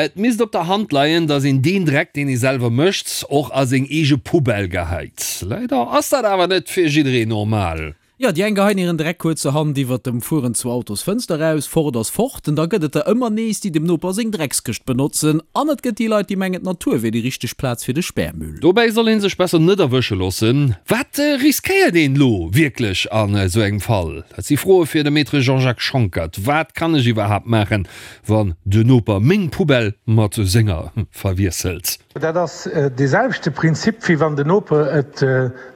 Et misst op der Hand leien, datt een deen Dreck, deen ee selwer mécht, och a seng eege Poubelle geheit. Leider ass dat awer net fir jiddereen normal. Jo, déi eng geheien hiren Dreck kuerzerhand iwwert dem Fueren zur Autosfënster eraus, fort ass fort. An da gëtt et der ëmmer nees, déi dem Noper seng Dreckskëscht benotzen. An et gëtt déi Leit, déi mengen, d'Natur wier déi richteg Plaz fir de Spärmüll. Dobäi soll ee sech besser net erwësche loossen. Wat riskéiert een elo wierklech an esou engem Fall? Dat si Froe fir de Maître Jean-Jacques Schonckert. Wat kann ech iwwerhaapt maachen, wann de Noper meng Poubelle mat senger verwiesselt? Dat ass dee selwechte Prinzip, wéi wann de Noper et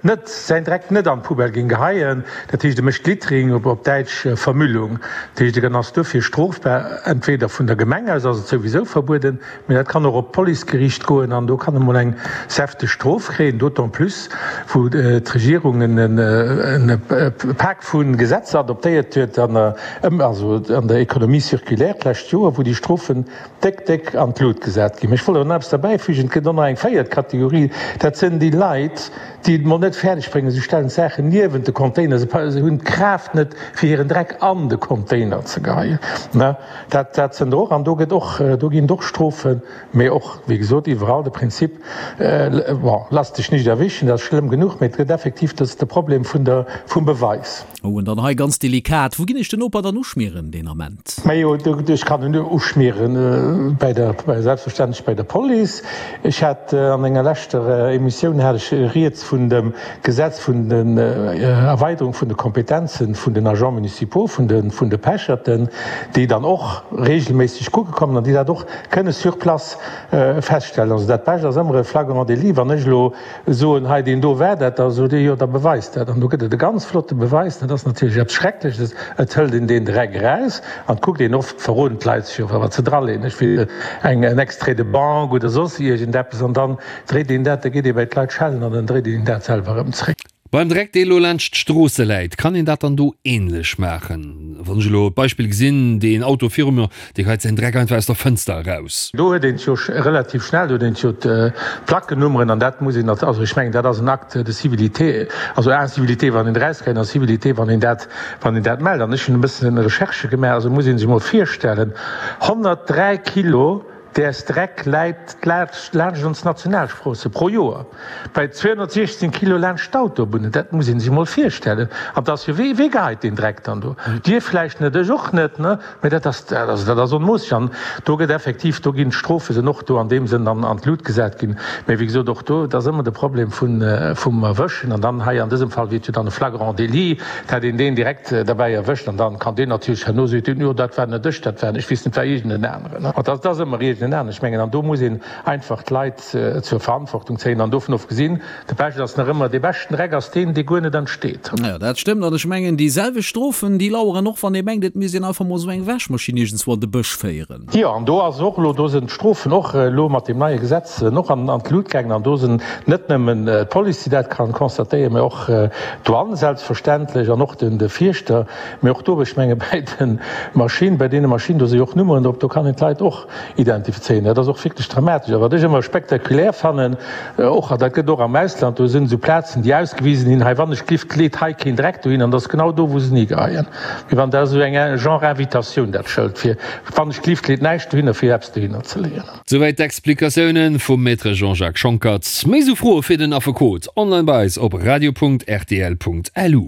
net, säin Dreck net an d'Poubelle géing geheien. Dat heescht, e mécht Littering, op Däitsch Vermüllung. Dat heescht, en ass duerfir strofbar. Entweder vun der Gemeng aus ass et souwisou verbueden, mee dat kann och op d'Policegeriicht goen an do kann e mol eng säfteg Strof kréien, d'autant plus wou d'Regierung e Pak vu Gesetzer adoptéiert huet an der, also an der Économie circulaire d'lescht Joer, wou déi Strofen déck, déck an d'Lut gesat ginn. Mee ech wollt awer nach eppes derbäifügen, Et gëtt och nach eng véiert Kategorie, dat sënn déi Leit, déi et mol net fäerdeg bréngen, se stellen d'Saachen niewent de Container, se hunn d'Kraaft net, fir hiren Dreck an de Container ze geheien. Dat, dat sënn der och. An do gëtt och, do ginn et och Strofen, mee och, wéi gesot, iwwerall de Prinzip, bon, lass dech nicht erwischen, dat ass schlëmm genuch, mee et gëtt effektiv, dat ass de Problem vun der, vum Beweis. Oh, an dann hei ganz delikat, Wou ginn ech den Noper dann uschmieren deen Ament? Majo, ech kann en uschmieren bei der, selbstverständlech bei der Police. Ech hat an enger leschter Emissioun hat ech rieds vun dem Gesetz vun den Erweiderung vun de Kompetenzen vun den Agents municipaux, vun de, vun de Pecherten, déi dann och regelméisseg kucke kommen an déi dat och kënne sur place feststellen. Also dat Bescht ass ëmmer e flagrant délit. Wann ech elo soen, hei deen do war dat, da sot Dir, jo da beweist dat. An do gëtt et e ganz flotte Beweis, dat ass natierlech eppes Schreckleches, et hëlt een deen Dreck eraus an et kuckt een, oft verroden d'Leit sech jo wat se draleeën, ech weess eng en Extrait de banque oder soss iergendeppes, an dann dréit een dat, da geet ee bei d'Leit schellen an dann dréit een dat selwer erëm zréck. Beim Dreck dee lo laanscht d'Stroosse läit, kann een dat dann do ähnlech maachen? Wann ech elo d'Beispill gesinn, deen Auto viru mir, dee geheit säin Dreck einfach aus der Fënster eraus. Do huet een et jo relativ schnell, do huet een et jo d'Plackennummeren an dat muss een, also ech mengen dat ass en Acte de civilité, also incivilité wann een erausgeheit an civilité wann een dat, wann een dat mellt. An ech hunn e bëssen Recherchë gemaach, also muss ee sech emol virstellen, 103 Kilo Däers Dreck läit laanscht ons Nationalstroosse pro Joer bei 216 Kilo laanscht d'Autobunnen. Dat muss ee sech emol virstellen. An 't ass jo, wee geheit deen Dreck dann do? Dir vläicht net, ech och net, ne? Mä dat ass, also dat ass onmoosseg. An do gëtt effektiv, do ginn d'Strofe sinn och do an deem Sënn an an d'Lut gesat ginn. Mä wéi gesot, och do, et ass ëmmer de Problem vun, vum Erwëschen. An dann hei an dësem Fall wier et jo dann e flagrant délit, Et hätt een deen direkt derbäi erwëscht an dann kann deen natierlech herno soen, jo dat war net ech, dat war, ech weess net, war iergend en aneren. An dat ass ëmmer iergend en aneren. Ech mengen, an do muss een einfach d'Leit zur Verantwortung zéien an dovun ofgesinn, de Bescht ass nach ëmmer, dee beschten Dreck ass deen, dee guer net entsteet. Jo, dat stëmmt. An ech mengen, déi selwecht Strofen, déi laueren och, wann ee mengt, et misst een einfach mol esou eng Wäschmaschinn iergendswou an de Bësch féieren. Jo, an do ass och elo, do sinn d'Strofen och elo mat deem neie Gesetz och an d'Lut gaangen. An do sinn net nëmmen d'Police, déi dat ka constatéieren, mä och d'Douane selbstverständlech an och de Fierschter. Mä och do, ech menge bäi de Maschinen, bäi deene Maschinen, do si jo och Nummeren drop, do kann een d'Leit och identifizéieren. Dat ass och wierklech dramatesch. A wat ech ëmmer spektakulär fannen och, an dat gëtt och am Ausland, do sinn esou Plazen, déi ausgewisen hinn, hei wann ech d'Lift leet hei keen Dreck dohin, an dat ass genau do, wou se en higeheien. Wéi wann dat esou eng genre Invitatioun, dat Schëld, fir wann ech d'Lift leet näischt dohinner, fir eppes dohinner ze leeën. Souwäit d'Explikatiounen vum Maître Jean-Jacques Schonckert. Méi esou Froe fir den Affekot online bei eis op radio.rtl.lu.